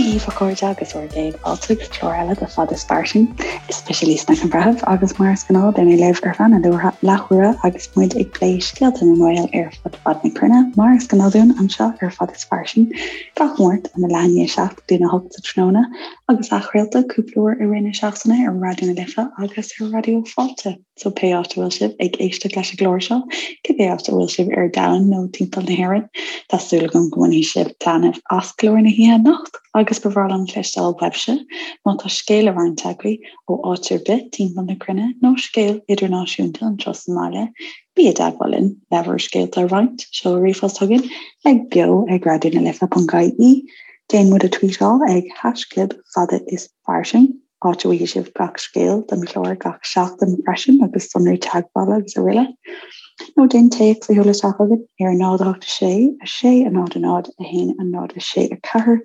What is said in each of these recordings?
Dia dhaoibh a chairde agus bhur gcéad fáilte go clár eile de Fada is Fairsing. Is mise Lisa Nic an Bhreithimh agus mar is gnáth beidh mé libh ar feadh na leathuaire agus muid ag plé scéalta na nGael ar fud fad na cruinne mar is gnáth dúinn anseo ar Fada is Fairsing gach Máirt óna leath i ndiaidh a 7 go dtína 8 sa tráthnóna agus athchraolta cúpla uair i rith na seachtaine ar Raidió na Life agus ar Raidió Fáilte. So pé áit a bhfuil sibh ag éisteacht leis an gclár seo, cibé áit a bhfuil sibh ar domhan nó timpeall na hÉireann, tá súil agam go mbainfidh sibh taitneamh as clár na hoíche anocht agus ba bhreá liom cloisteáil uaibhse má tá scéal le roinnt agaibh ó áit ar bith timpeall na cruinne nó scéal idirnáisiúnta anseo sa mbaile, bí i dteagmháil linn le bhur scéalta a roinnt, seol ríomhphost chugainn ag beo ag raidionalife.ie, déan muid a tweetáil ag haischlib fada is fairsing. áit a bhfaighidh sibh gach scéal don chlár gach seachtain freisin agus sonraí teagmhála agus araile. Nó déan téacs a sheoladh isteach chugainn ar 0 8 6 6 0 0 1 0 6 4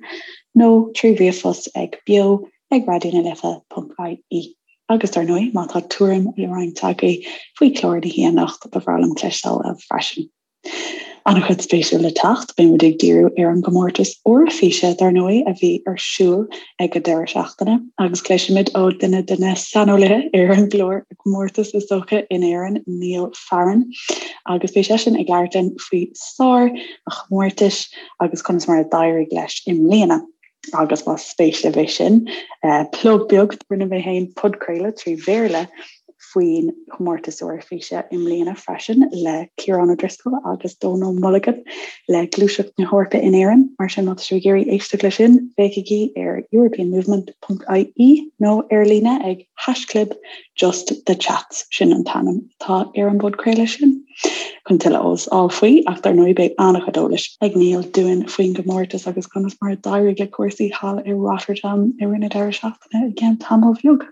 nó trí ríomhphost ag beo ag raidionalife.ie. Agus dar ndóigh, má tá tuairim le roinnt agaibh faoi chlár na hoíche anocht, ba bhreá liom cloisteáil uaibh freisin. An-chuid spéisiúil le teacht, beidh muid ag díriú ar an gcomórtas Eoraifíse, dar ndóigh, a bhí ar siúl ag an deireadh seachtaine, agus cloisfimid ó duine de na saineolaithe ar an gclár comórtas is dócha in Éirinn, Niall Farren, agus beidh seisean ag labhairt linn faoi sár an chomórtais agus conas mar a d'éirigh leis i mbliana. Agus más spéis libh é sin, plug beag, rinne mé féin podchraoladh trí Bhéarla faoin chomórtas Eoraifíse i mbliana freisin le Ciarán O'Driscoll agus Dónal Mulligan le Gluaiseacht na hEorpa in Éirinn. Mar sin, má tá sibh ag iarraidh éisteacht leis sin, féachaigí ar europeanmovement.ie nó ar líne ag haischlib Just the Chats, sin an t-ainm atá ar an bpodchraoladh sin. Chun tuilleadh eolas a fháil faoi, ach dar ndóigh beidh an-chuid eolais ag Niall dúinn faoin gcomórtas agus conas mar a d'éirigh le cúrsaí thall i Rotterdam i rith na deireadh seachtaine i gceann tamall bheag.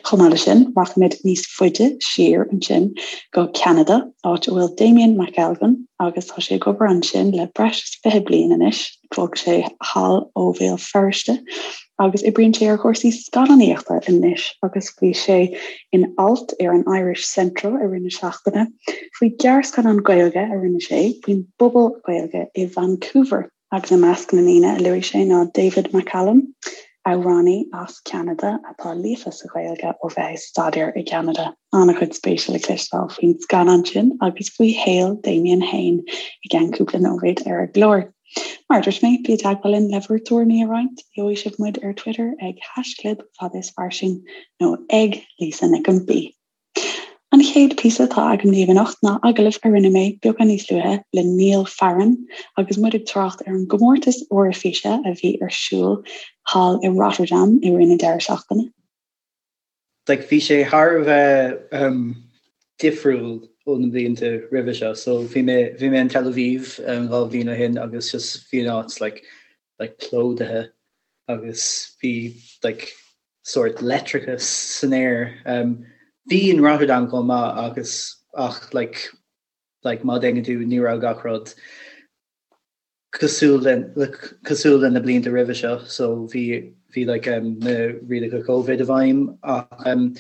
Chomh maith leis sin, rachaimid níos faide siar ansin go Ceanada, áit a bhfuil Damien McElgunn agus tá sé ag obair ansin le breis is 20 bliain anois. Bhog sé thall ó Bhéal Feirste agus oibríonn sé ar chúrsaí scannánaíochta anois agus bhí sé in alt ar an Irish Central i rith na seachtaine faoi ghearrscannán Gaeilge a rinne sé faoin bpobal Gaeilge i Vancouver agus i measc na ndaoine a luaigh sé ná David McCallum, amhránaí as Ceanada atá líofa sa Ghaeilge ó bheith ag staidéar i gCeanada. An-chuid spéise le cloisteáil faoin scannán sin agus faoi shaol Damien féin i gceann cúpla nóiméad ar an gclár. Mar a dúirt mé, bí i dteagmháil linn le bhur dtuairimí a roinnt. Gheobhaidh sibh muid ar Twitter ag haischlib fada is fairsing nó ag Lisa Nic an B. An chéad phíosa atá agam daoibh anocht ná agallamh a rinne mé beagán níos luaithe le Niall Farren agus muid ag trácht ar an gcomórtas Eoraifíse a bhí ar siúl thall i Rotterdam i rith na deireadh seachtaine. Like bhí sé thar a bheith um, difriúil ó na blianta roimhe seo. So bhí mé bhí mé in Tel Aviv um, 2 bhliain ó shin agus just bhí an áit like, like plódaithe agus bhí like, sórt leictreachas san aer. Um, bhí in Rotterdam chomh maith agus ach like, like, má dhéanann tú ní raibh gach rud cosúil le cosúil le na blianta roimhe seo so bhí bhí like, um, na rialacha Covid i bhfeidhm ach um,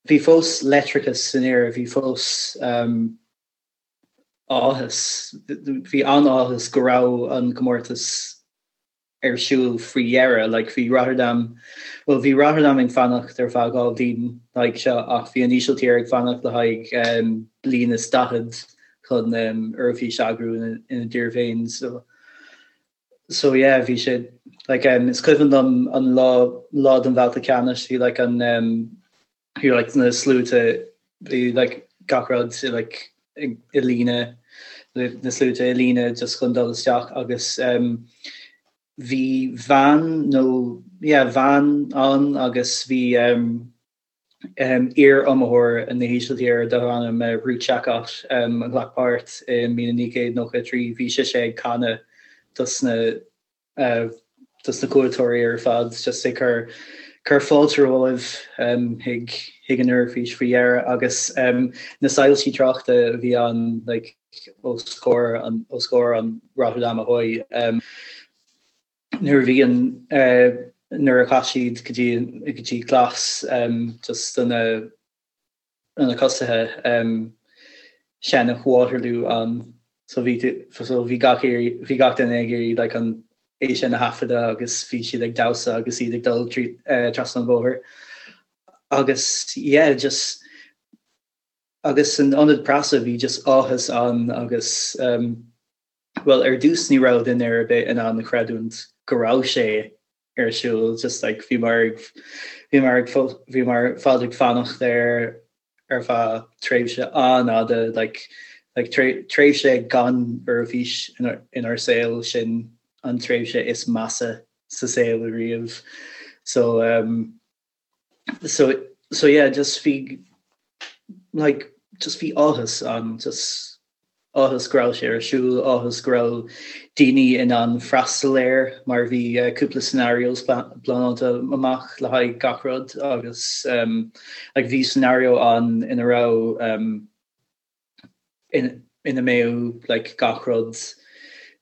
bhí fós leictreachas san aer, bhí fós um, áthas, bhí an-áthas go raibh an comórtas ar siúl faoi dheireadh. Like bhí Rotterdam, bhuel bhí Rotterdam ag fanacht ar feadh 2 bhliain le haghaidh seo ach bhí an Ísiltír ag fanacht le haghaidh um, bliain is 40 chun um, Eoraifís a eagrú ina, ina dtír féin. So, so yeah, bhí sé like, um, is cuimhin liom an lá, lá den bhabhta ceannais, bhí like, an um, bhí like na sluaite bhí like gach rud like i líne na sluaite i líne just chun dul isteach agus um, bhí bhean nó yeah, bhean ann agus bhí um, um, iar-iomaitheoir na hÍsiltíre darbh ainm uh, Ruth Jacott um, a ghlac páirt i 1993 bhí sise ag canadh dos na dos na cuairteoirí ar fad just ag cur cur fáilte romhaibh chuig chuig an Eoraifís faoi dheireadh agus na soilsí tráchta a bhí ann like os comhair an os comhair an Rotterdam Ahoy nuair a bhí an nuair a chaith siad go dtí go dtí glas just do na na tosaithe seinneadh Waterloo ann so bhí so bhí gach bhí gach duine ag iarraidh like an. é sin a thaifeadadh agus bhí siad ag damhsa agus iad ag dul trasna an bhóthair agus yeah just agus san ionad preasa bhí just áthas ann agus um, well ar dtús ní raibh duine ar bith in ann a chreidiúint go raibh sé ar siúl just like bhí mar bhí mar bhí mar fad ag fanacht air ar feadh tréimhse an-fhada like like tréimhse gan Eoraifís inár saol sin an tréimhse is measa sa saol ariamh so um so so yeah just bhí like just bhí áthas ann just áthas go raibh sé ar siúl, áthas go raibh daoine in ann freastal air mar bhí cúpla scenarios pleanáilte amach le haghaidh gach rud agus like bhí scenario ann ina raibh ina mbeadh like gach rud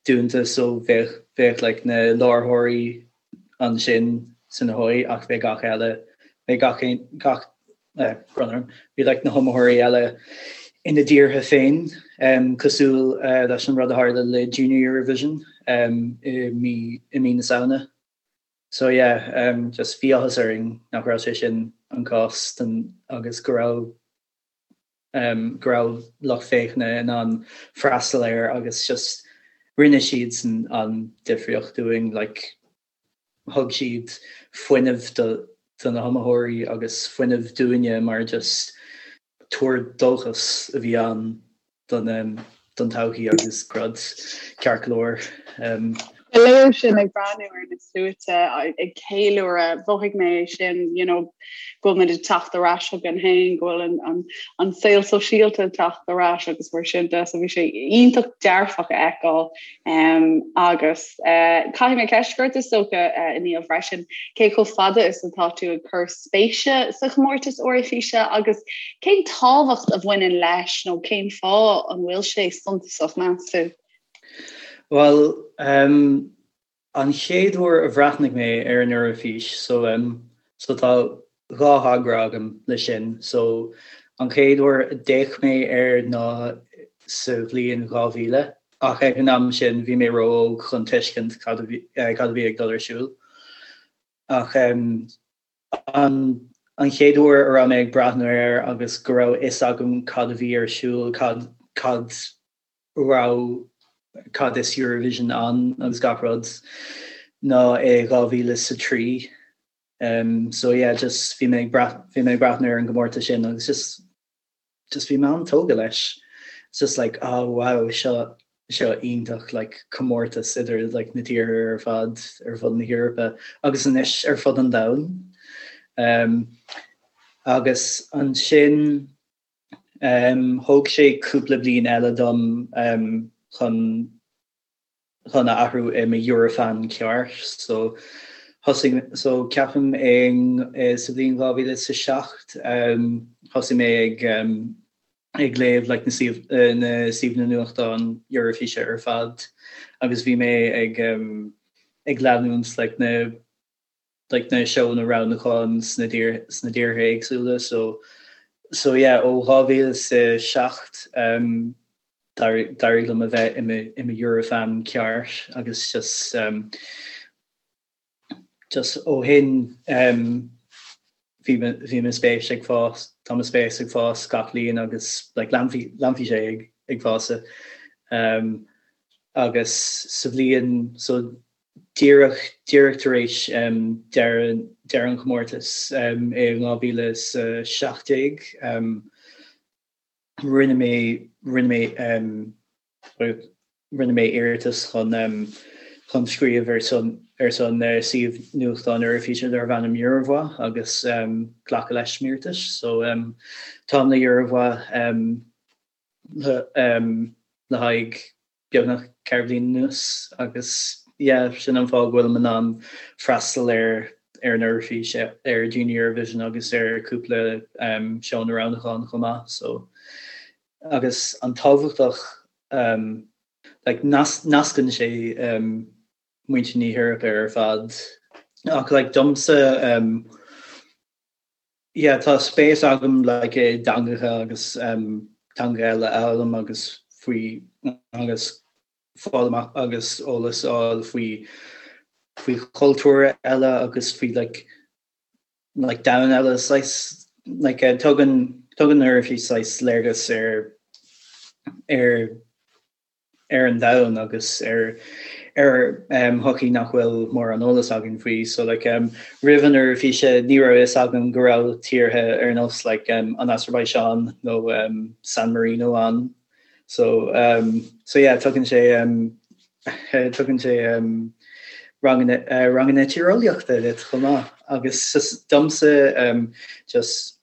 dúnta so bheadh bheadh like na láithreoirí ansin san Ahoy ach bheadh gach eile bheadh gach aon gach brón orm bhí like na hiomaitheoirí eile ina dtíortha féin cosúil leis an rud a tharla le Junior Eurovision i mí i mí na Samhna. So yeah just bhí áthas orainn nach raibh sé sin an cás don agus go raibh go raibh lucht féachana in ann freastal air agus just rinne siadsan an difríocht dúinn like thug siad fuinneamh do do na hiomaitheoirí agus fuinneamh dúinne mar just tuar dóchais a bhí ann don don todhchaí agus rud ceart go leor. Ba léir sin ag breathnú ar na sluaite ag ceiliúradh, mhothaigh mé é sin, you know, go bhfuil muid ag teacht ar ais chugainn féin, go bhfuil an, an, an saol sóisialta ag teacht ar ais agus mar sin de, so bhí sé iontach dearfach a fheiceáil. Um, agus uh, caithfidh mé ceist a chur ort is dócha uh, a Niall freisin, cé chomh fada is atá tú ag cur spéise sa chomórtas Eoraifíse agus cén tábhacht a bhaineann leis nó cén fáth an bhfuil sé suntasach meas tú? Bhuel, um, an chéad uair a bhreathnaigh mé ar an Eoraifís, so, um, so tá dhá thogra agam le sin. So, an chéad uair a d'fhéach mé air ná sa bhliain 2000, ach ag an am sin bhí mé ró-óg chun tuiscint cad a bhí, eh, cad a bhí ag dul ar siúl. Ach um, an, an chéad uair a raibh mé ag breathnú air agus go raibh fhios agam cad a bhí ar siúl, cad, cad raibh cad is Eurovision ann agus gach rud ná i 2003. Um, so yeah, just bhí mé ag bhí mé ag breathnú ar an gcomórtas sin agus just just bhí mé an-tógtha leis. It's just like, oh wow, seo seo iontach like comórtas idir like na tíortha ar fad ar fud na hEorpa agus anois ar fud an domhain. Um, agus ansin Thóg sé cúpla bliain eile dom chun chun a athrú i mo Eurofan ceart. So thosaigh so ceapaim i sa bhliain 2007 thosaigh mé ag ag léamh like na suíomh na suíomhanna nuachtán Eoraifíse ar fad agus bhí mé ag ag leanúint like na like na seónna roghnúcháin sna sna tíortha éagsúla so so yeah ó 2007 um, d'éirigh liom a bheith i mo i mo Eurofan ceart agus just um, just ó shin um, bhí bhí mo spéis ag fás tá mo spéis ag fás gach bliain agus like leanfaidh leanfaidh sé ag ag fás um, agus sa bhliain so Díreach, díreach tar éis deireadh, deireadh an chomórtais i 2017, rinne mé, rinne mé, rinne mé iarratas chun, chun scríobh ar son, ar son suíomh nuachtáin Eoraifíse darbh ainm Eurovoix agus glacadh leis m'iarratas. So táim le Eurovoix le haghaidh beagnach 4 bhliain anuas agus yeah sin an fáth go bhfuilim in ann freastal ar ar an Eoraifís, ar Junior Eurovision agus ar cúpla seónna roghnúcháin chomh maith so agus an tábhachtach like nascann sé muintir na hEorpa ar fad ach like domsa Yeah, tá spéis agam like i dteangacha agus um, teanga eile a fhoghlaim agus faoi agus fáil amach agus eolas a fháil faoi faoi chultúir eile agus faoi like like domhan eile saghas like tugann tugann an Eoraifís saghas léargas ar ar ar an domhan agus ar ar shochaí nach bhfuil mórán eolas againn faoi. So like roimh an Eoraifís ní raibh fhios agam go raibh tíortha ar nós like an Asarbaiseáin nó San Marino ann. So so yeah tugann sé tugann sé ranganna ranganna tíreolaíochta duit chomh maith agus just domsa just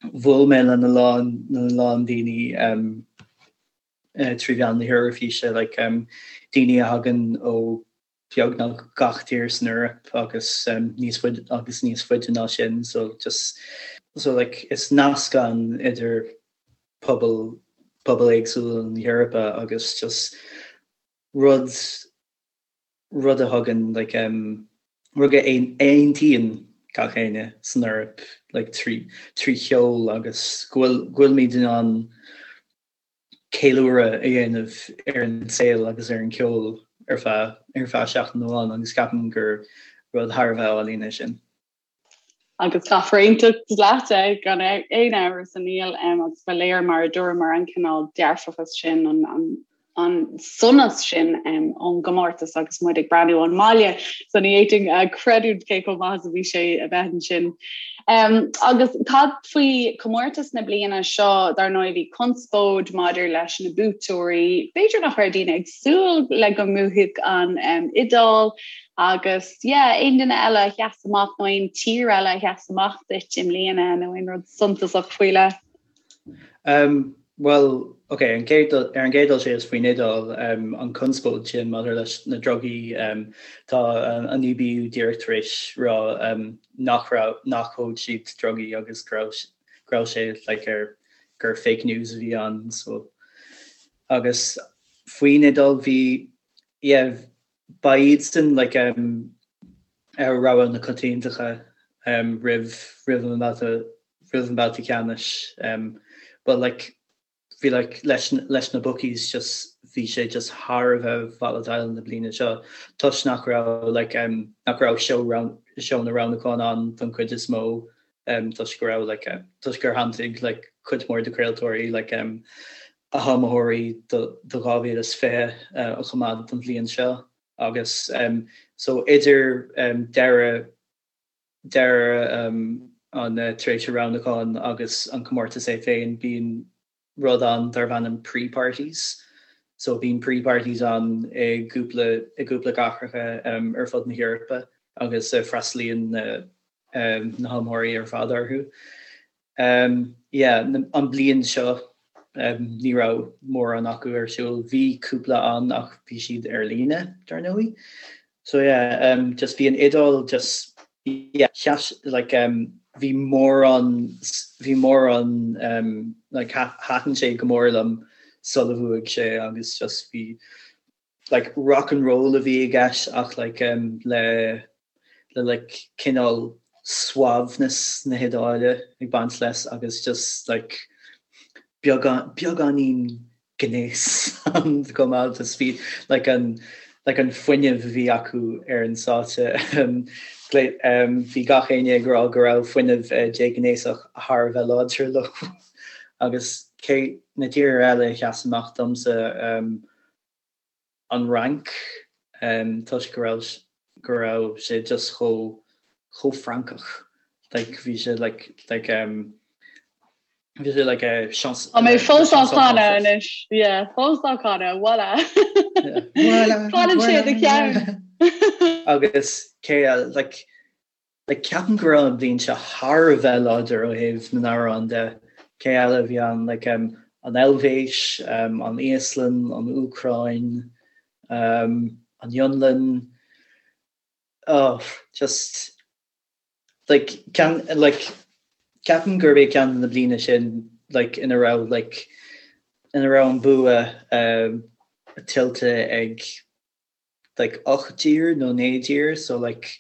bhuail mé lena lán lena lán daoine trí mheán na hEoraifíse, like daoine a thagann ó beagnach gach tír san Eoraip agus níos faide agus níos faide ná sin, so just so like is nasc ann idir pobal pobail éagsúla na hEorpa agus just rud rud a thugann like rud a aontaíonn gach éinne san Eoraip like trí trí cheol agus go bhfuil go bhfuilimid in ann ceiliúradh a dhéanamh ar an saol agus ar an cheol ar feadh ar feadh seachtain amháin agus ceapaim gur rud thar a bheith álainn é sin. Agus caithfear aontacht leat é gan aon amhras a Niall agus ba léir mar a dúramar an cineál dearfachas sin an an an sonas sin ón gcomórtas agus muid ag breathnú ón mbaile so ní fhéadfainn a chreidiúint cé chomh maith is a bhí sé a bheith ansin. Um, agus cad faoi comórtas na bliana seo dar ndóigh bhí conspóid maidir leis na buaiteoirí, b'fhéidir nach raibh daoine ag súil le go mbuafadh an um, Iodáil agus yeah, aon duine eile a sheas amach nó aon tír eile a sheas amach duit i mbliana nó aon rud suntasach faoi leith? Um, Bhuel, ok, an chéad, ar an gcéad dul síos faoin Iodáil, an conspóid sin maidir leis na drugaí, tá an EBU díreach tar éis rá nach raibh, nach thóg siad drugaí agus go raibh, go raibh sé like ar, gur fake news a bhí ann so. Agus faoin Iodáil bhí, yeah, ba iadsan like rogha na coitiantachta roimh, roimh an mbabhta roimh an mbabhta ceannais but like bhí like leis leis na bookies just bhí sé just thar a bheith volatile na bliana seo toisc nach raibh like um, nach raibh seó seónna roghnúcháin ann don chuid is mó um, toisc go raibh like uh, toisc gur shantaigh like cuid mhór de chraoltóirí like um, a hiomaitheoirí do, do 2020 uh, a choimeád don bhliain seo agus um, so idir um, deireadh deireadh an tréimhse roghnúcháin agus an comórtas é féin, bíonn rud ann darb ainm pre-parties. So bíonn pre-parties ann i gcúpla i gcúpla cathracha ar fud na hEorpa agus freastalaíonn na na hiomaitheoirí ar fad orthu. Yeah, an bliain seo ní raibh mórán acu ar siúl. Bhí cúpla ann ach bhí siad ar líne, dar ndóigh. So yeah, just bhí an Iodáil just yeah, sheas like bhí mórán bhí mórán like thaitin sé go mór liom sula bhuaigh sé agus just bhí like rock and roll a bhí i gceist ach like um, le le like cineál suaimhneas na hIodáile ag baint leis agus just like beagán beagáinín gnéas ann chomh maith just bhí like an like an fuinneamh a bhí acu ar an stáitse um, um, bhí gach éinne ag rá go raibh fuinneamh uh, déghnéasach thar a bheith láidir leo agus cé na tíortha eile a sheas amach domsa um, an Fhrainc toisc go raibh go raibh sé just chomh chomh Francach like bhí sé like like um bhí sé like a chance Tá mé fós á chanadh anois yeah fós á chanadh voilà Fanann sé i do cheann agus cé like Like ceapaim go raibh an bhliain seo thar a bheith láidir ó thaobh na n-amhrán de. Cé eile a bhí ann? Like um, an Eilvéis, um, an Íoslainn, an Úcráin, um, an Fhionlainn. Oh, just like ceann like ceapaim gurb é ceann de na bliana sin like ina raibh like ina raibh an bua um, tuillte ag like 8 dtír nó 9 dtír so like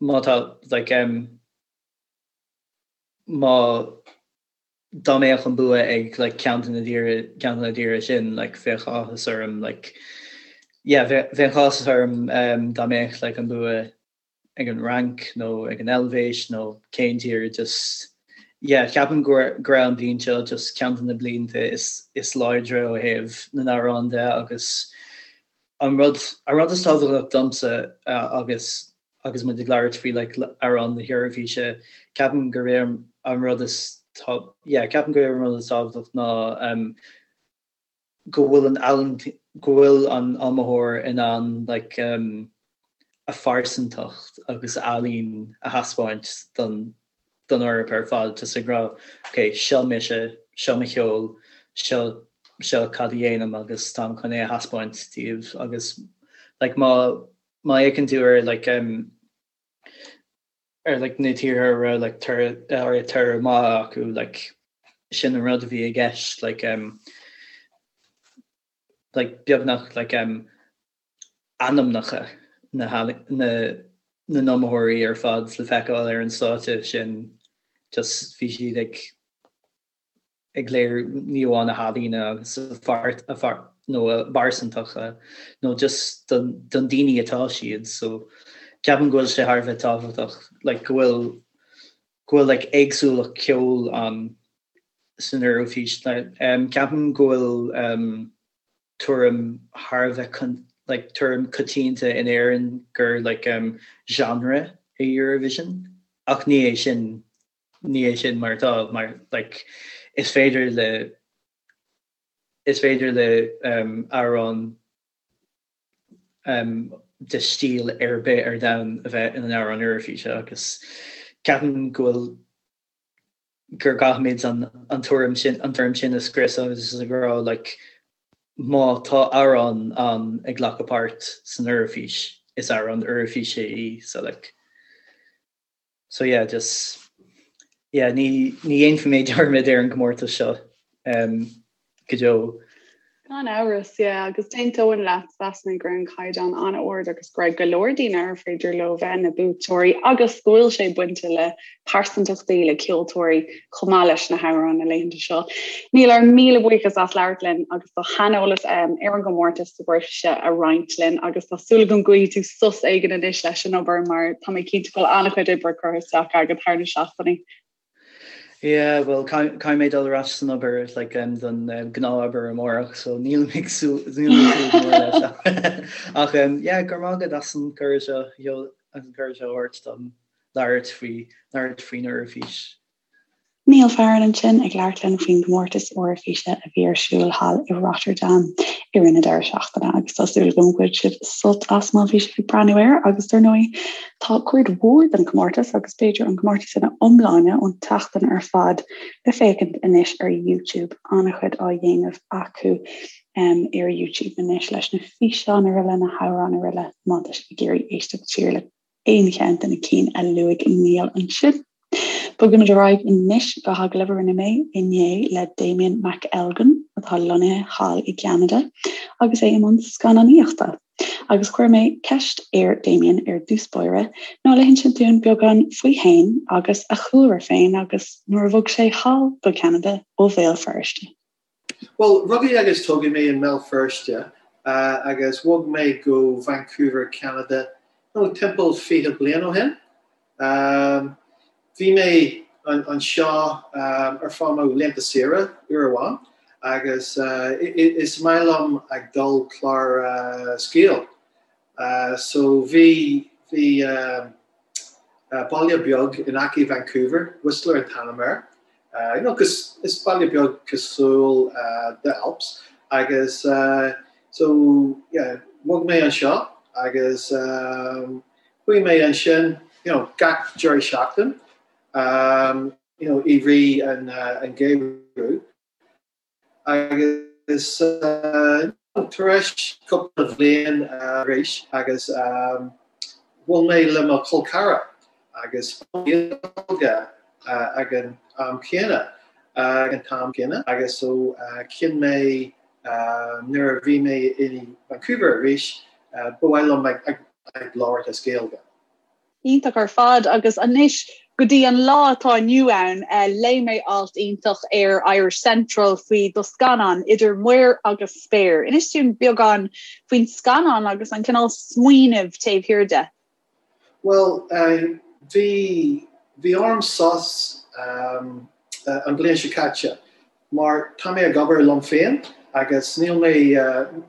má tá like um, má dá mbeadh an bua ag like ceann de na dtíortha ceann de na dtíortha sin like bheadh áthas orm like Yeah bheadh áthas orm dá mbeadh like an bua ag an Fhrainc nó ag an Eilvéis nó cén tír just yeah ceapaim go raibh an bhliain seo just ceann de na blianta is is láidre ó thaobh na n-amhrán de agus an rud an rud is tábhachtach domsa agus agus muid ag labhairt faoi like amhrán na hEoraifíse ceapaim gurb é an rud is tá yeah ceapaim gurb é an rud is tábhachtach ná um, go bhfuil an ealaín, go bhfuil an iomaitheoir in ann like um a phearsantacht agus a ealaín a thaispeáint don don Eoraip ar fad just ag rá ok seo mise, seo mo cheol, seo seo cad a dhéanaim agus táim chun é a thaispeáint daoibh agus like má má fhéachann tú ar like um ar like na tíortha a raibh like toradh ar toradh maith acu like sin an rud a bhí i gceist like um like beagnach like um ainmneacha na na na n-iomaitheoirí ar fad le feiceáil ar an stáitse sin just bhí siad ag ag léiriú ní amháin a healaíne agus a phar a phar nó a bpearsantachta nó just don don daoine atá siad so ceapaim go bhfuil sé thar a bheith tábhachtach like go bhfuil go bhfuil like éagsúlacht ceoil ann san Eoraifís like um ceapaim go bhfuil um tuairim thar a bheith like tuairim coitianta in Éirinn gur like um genre é Eurovision ach ní é sin ní é sin mar atá, mar like is féidir le is féidir le um, amhrán um, de stíl ar bith ar domhan a bheith ina amhrán Eoraifíse agus ceapaim go bhfuil gur gcaithfimid an, an tuairim sin an tuairim sin a scriosadh agus ag rá like má tá amhrán ann ag glacadh páirt san Eoraifís is amhrán Eoraifíse í so like So yeah, just yeah, ní ní dhéanfaidh mé dearmad ar an gcomórtas seo um, go deo. Gan amhras, yeah, agus d'aontóinn leat mheas mé go raibh an caighdeán an-ard agus go raibh go leor daoine ar féidir leo bheith ina buaiteoirí agus go bhfuil sé bainte le pearsantachtaí le ceoltóirí chomh maith leis na hamhráin na laethanta seo. Niall ár míle buíochas as labhairt linn agus do shaineolas um, ar an gcomórtas sa Eoraifís a roinnt linn agus tá súil agam go bhfaighidh tú sos éigin anois leis an obair mar tá mé cinnte go bhfuil an-chuid oibre curtha isteach agat thar na seachtainí. Yeah, well caithfidh mé dul ar ais san obair like, um, don um, gnáthobair amárach, so níl mé ag súil mór leis. Ach um, yeah, go raibh maith agat as an cuireadh seo as an cuireadh seo a thabhairt dom labhairt faoi labhairt faoin Eoraifís. Niall Farren ansin ag labhairt linn faoin gcomórtas Eoraifíse a bhí ar siúl thall i Rotterdam i rith na deireadh seachtaine agus tá súil agam go bhfuil sibh sult as má bhí sibh ag breathnú air agus dar ndóigh tá cuid mhór den chomórtas agus b'fhéidir an comórtas ina iomláine ón tseachtain ar fad le féachaint anois ar YouTube an-chuid á dhéanamh acu um, ar YouTube anois leis na físeáin araile na hamhráin araile má tá sibh ag iarraidh éisteacht siar le aon cheann de na cinn a luaigh Niall ansin. Bogaimid ar aghaidh anois go hagallamh a rinne mé inné le Damien McElgunn atá lonnaithe thall i gCeanada agus é i mbun scannánaíochta. Agus chuir mé ceist ar Damien ar dtús báire ná le hinsint dúinn beagán faoi fhéin agus a chúlra féin agus nuair a bhog sé thall go Ceanada ó Bhéal Feirste. Bhuel, rugadh agus tógadh mé i mBéal Feirste agus bhog mé go Vancouver, Ceanada, nó timpeall 20 bliain ó shin. Bhí mé anseo ar feadh mo laethanta saoire uair amháin agus is maith liom ag dul clár sciáil. So bhí bhí baile beag in aice Vancouver, Whistler an t-ainm air. You know, is baile beag cosúil the Alps agus so yeah, bhog mé anseo agus chuaigh mé ansin you know, gach deireadh seachtain you know, i rith an geimhreadh. Agus tar éis cúpla bhliain arís agus bhuail mé le mo chol ceathrar agus Gaeilge ag an am céanna ag an t-am céanna agus so chinn mé nuair a bhí mé i Vancouver arís ba mhaith liom ag labhairt as Gaeilge. Iontach ar fad agus anois. Go dtí an lá atá inniu ann, léigh mé alt iontach ar Irish Central faoi do scannán, Idir Muir agus Spéir. Inis dúinn beagán faoin scannán agus an cineál smaoinimh taobh thiar de. Bhuel, bhí, bhí orm sos an bhliain seo caite mar tá mé ag obair liom féin agus níl mé,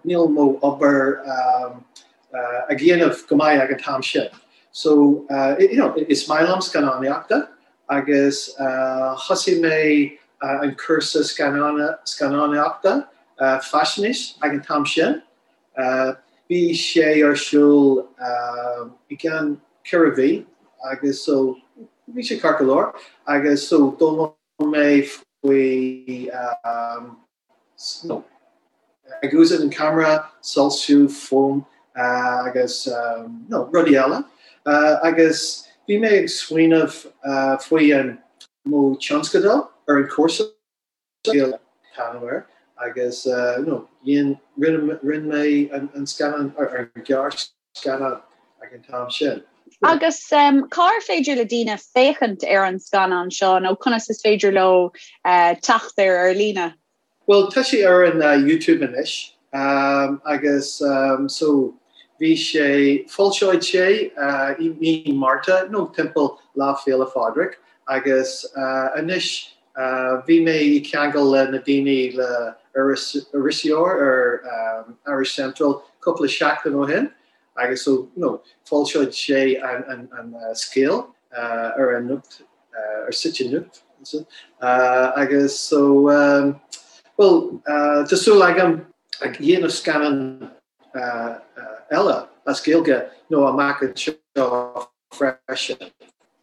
níl mo obair ag dhéanamh go maith ag an t-am sin. So, you know, is maith liom scannánaíochta agus thosaigh mé an cúrsa scannánaíochta faisnéis ag an t-am sin. Bhí sé ar siúl i gceann 4 mhí agus so bhí sé ceart go leor agus so d'fhoghlaim mé faoi you know ag úsáid an camera, soilsiú, fuaim agus you know rudaí eile agus bhí mé ag smaoineamh faoi an mo tionscadal ar an cúrsa. an t-ainm air agus you know dhein, rinne, rinne mé an scannán, ar an gearrscannán ag an t-am sin. Agus cár féidir le daoine féachaint ar an scannán seo nó conas is féidir leo teacht air ar líne? Bhuel tá sé ar an YouTube anois agus so bhí sé, foilseoidh sé i mí Márta nó timpeall Lá Féile Phádraig agus anois Bhí mé i ceangal le na daoine le iriseoir ar Irish Central cúpla seachtain ó shin agus so you know foilseoidh sé an an scéal ar an nuacht ar site nuacht agus so bhuel tá súil agam ag dhéanamh scannán eile as Gaeilge nó amach anseo freisin.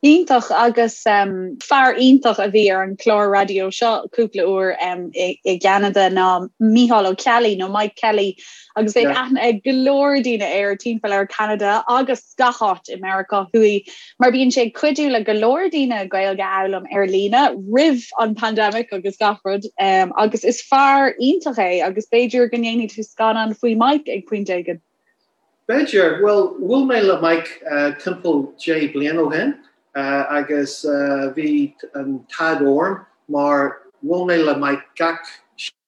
Iontach agus fear iontach a bhí ar an chlár raidió seo cúpla uair i gCeanada ná Micheál Ó Ceallaigh nó Mike Kelly agus bheadh aithne ag go leor daoine air timpeall ar Cheanada agus gach áit i Meiriceá Thuaidh mar bíonn sé ag cuidiú le go leor daoine Gaeilge a fhoghlaim ar líne roimh an pandemic agus gach rud agus is fear iontach é agus b'fhéidir go ndéanfaidh tú scannán faoi Mike ag pointe éigin. B'fhéidir. Bhuel, bhuail mé le Mike timpeall 10 bliain ó shin agus bhí an t-ádh orm mar bhuail mé le Mike gach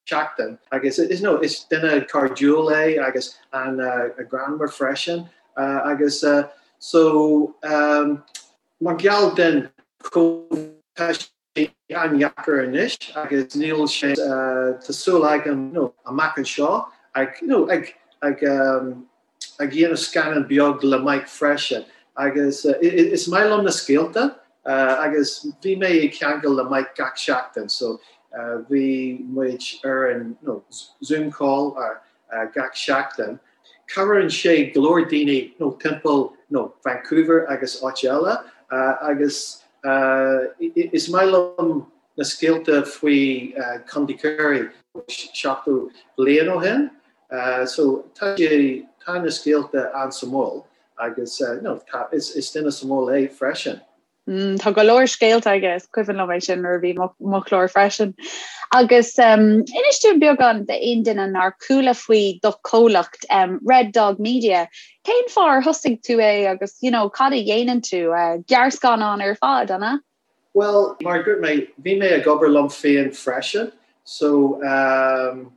seachtain agus is you know is duine cairdiúil é agus an-ghreannmhar freisin agus so mar gheall den Covid tá an-dheacair anois agus níl sé tá súil agam you know amach anseo ag you know ag ag ag dhéanamh scannán beag le Mike freisin agus is maith liom na scéalta agus bhí mé ag ceangal le Mike gach seachtain so bhí muid ar an you know Zoom call gach seachtain. Cabhraíonn sé go leor daoine you know timpeall you know Vancouver agus áit eile agus is maith liom na scéalta faoi Contae Chiarraí 70 bliain ó shin so tá sé tá na scéalta an-suimiúil agus you know tá is is duine suimiúil é freisin. Mm, tá go leor scéalta aige is cuimhin liom é sin nuair a bhí mo chlár freisin. Agus um, inis dúinn beagán d'aon duine nár chuala faoi do chomhlacht um, Red Dog Media. Cén fáth ar thosaigh tú é agus you know, cad a dhéanann tú? Uh, gearrscannán ar fad, an ea? Well, mar dúirt mé, bhí mé ag obair liom féin freisin, so um,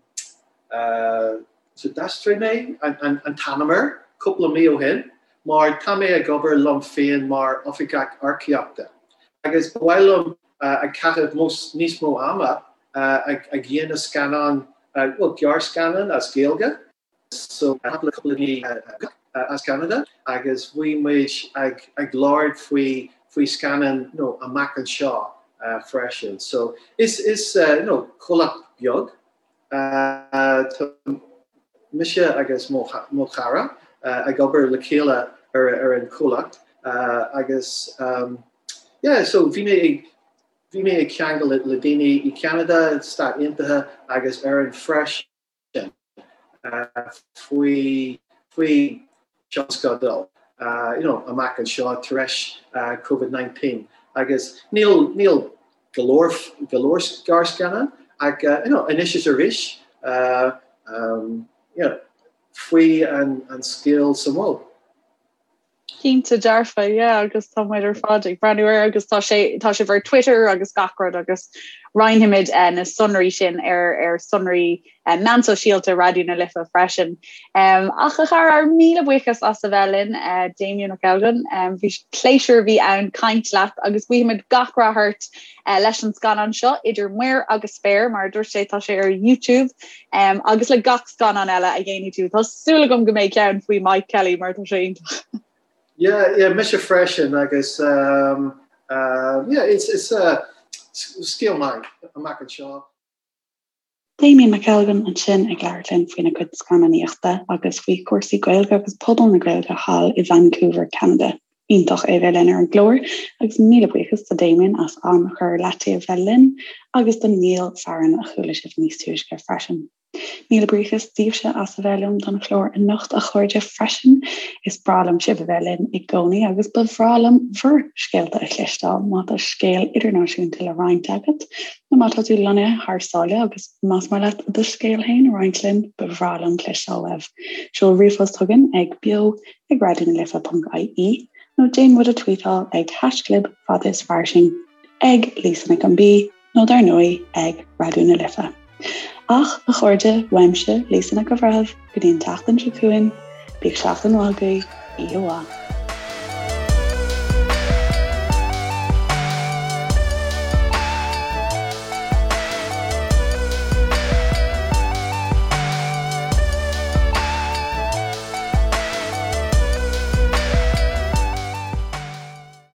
uh, So d'aistrigh mé an t-ainm air cúpla mí ó shin mar tá mé ag obair liom féin mar oifigeach earcaíochta agus ba mhaith liom ag caitheamh níos mó ama ag dhéanamh scannán, bhuel gearrscannán as Gaeilge. So cúpla daoine as Ceanada agus bhí muid ag labhairt faoi faoi scannán you know amach anseo freisin. So is is you know comhlacht beag Tá mise agus mo chara ag obair le chéile ar an chomhlacht agus yeah so bhí mé ag bhí mé ag ceangal le daoine i Ceanada, Stáit Aontaithe agus Éirinn freisin faoi faoi tionscadal you know amach anseo tar éis Covid-19 agus níl níl go leor go leor gearrscannán ach you know anois is arís you know faoi an an scéal suimiúil. Cinnte dearfa, yeah, agus tá muid ar fad ag breathnú air agus tá sé tá sibh ar Twitter agus gach rud agus roinnfimid eh, na sonraí sin ar ar sonraí eh, meán sóisialta Raidió na Life freisin. Um, ach a chara míle buíochas as a bheith linn uh, Damien McElgunn, um, bhí pléisiúr a bhí ann caint leat agus guímid gach rath ort uh, leis an scannán seo idir muir agus spéir mar a dúirt sé tá sé ar YouTube um, agus le gach scannán eile a dhéanfaidh tú. Tá súil agam go mbeidh ceann faoi Mike Kelly mar tá sé iontach. Yeah, yeah, mise freisin agus um, uh, yeah, it's, it's uh, scéal maith amach anseo. Damien McElgunn ansin ag labhairt linn faoina cuid scannánaíochta agus faoi chúrsaí Gaeilge agus pobal na Gaeilge thall i Vancouver, Ceanada. Iontach é bheith linn ar an gclár agus míle buíochas do Damien as am a chur ar leataobh bheith linn agus do Niall Farren a chuala sibh níos túisce freisin. Míle buíochas daoibhse as a bheith liom don chlár anocht a chairde freisin. Is breá liom sibh a bheith linn i gcónaí agus ba bhreá liom bhur scéalta a chloisteáil má tá scéal idirnáisiúnta le roinnt agat nó má tá tú lonnaithe thar sáile agus más maith leat do scéal féin a roinnt linn, ba bhreá liom cloisteáil uaibh. Seol ríomhphost chugainn ag beo ag raidionalife.ie nó déan muid a tweetáil ag haischlib fada is fairsing ag Lisa Nic an B nó dar ndóigh ag Raidió na Life. Ach, a chairde, uaimse, Lisa Nic an Bhreithimh, go dtí an tseachtain seo chugainn, bíodh seachtain mhaith agaibh, oíche mhaith.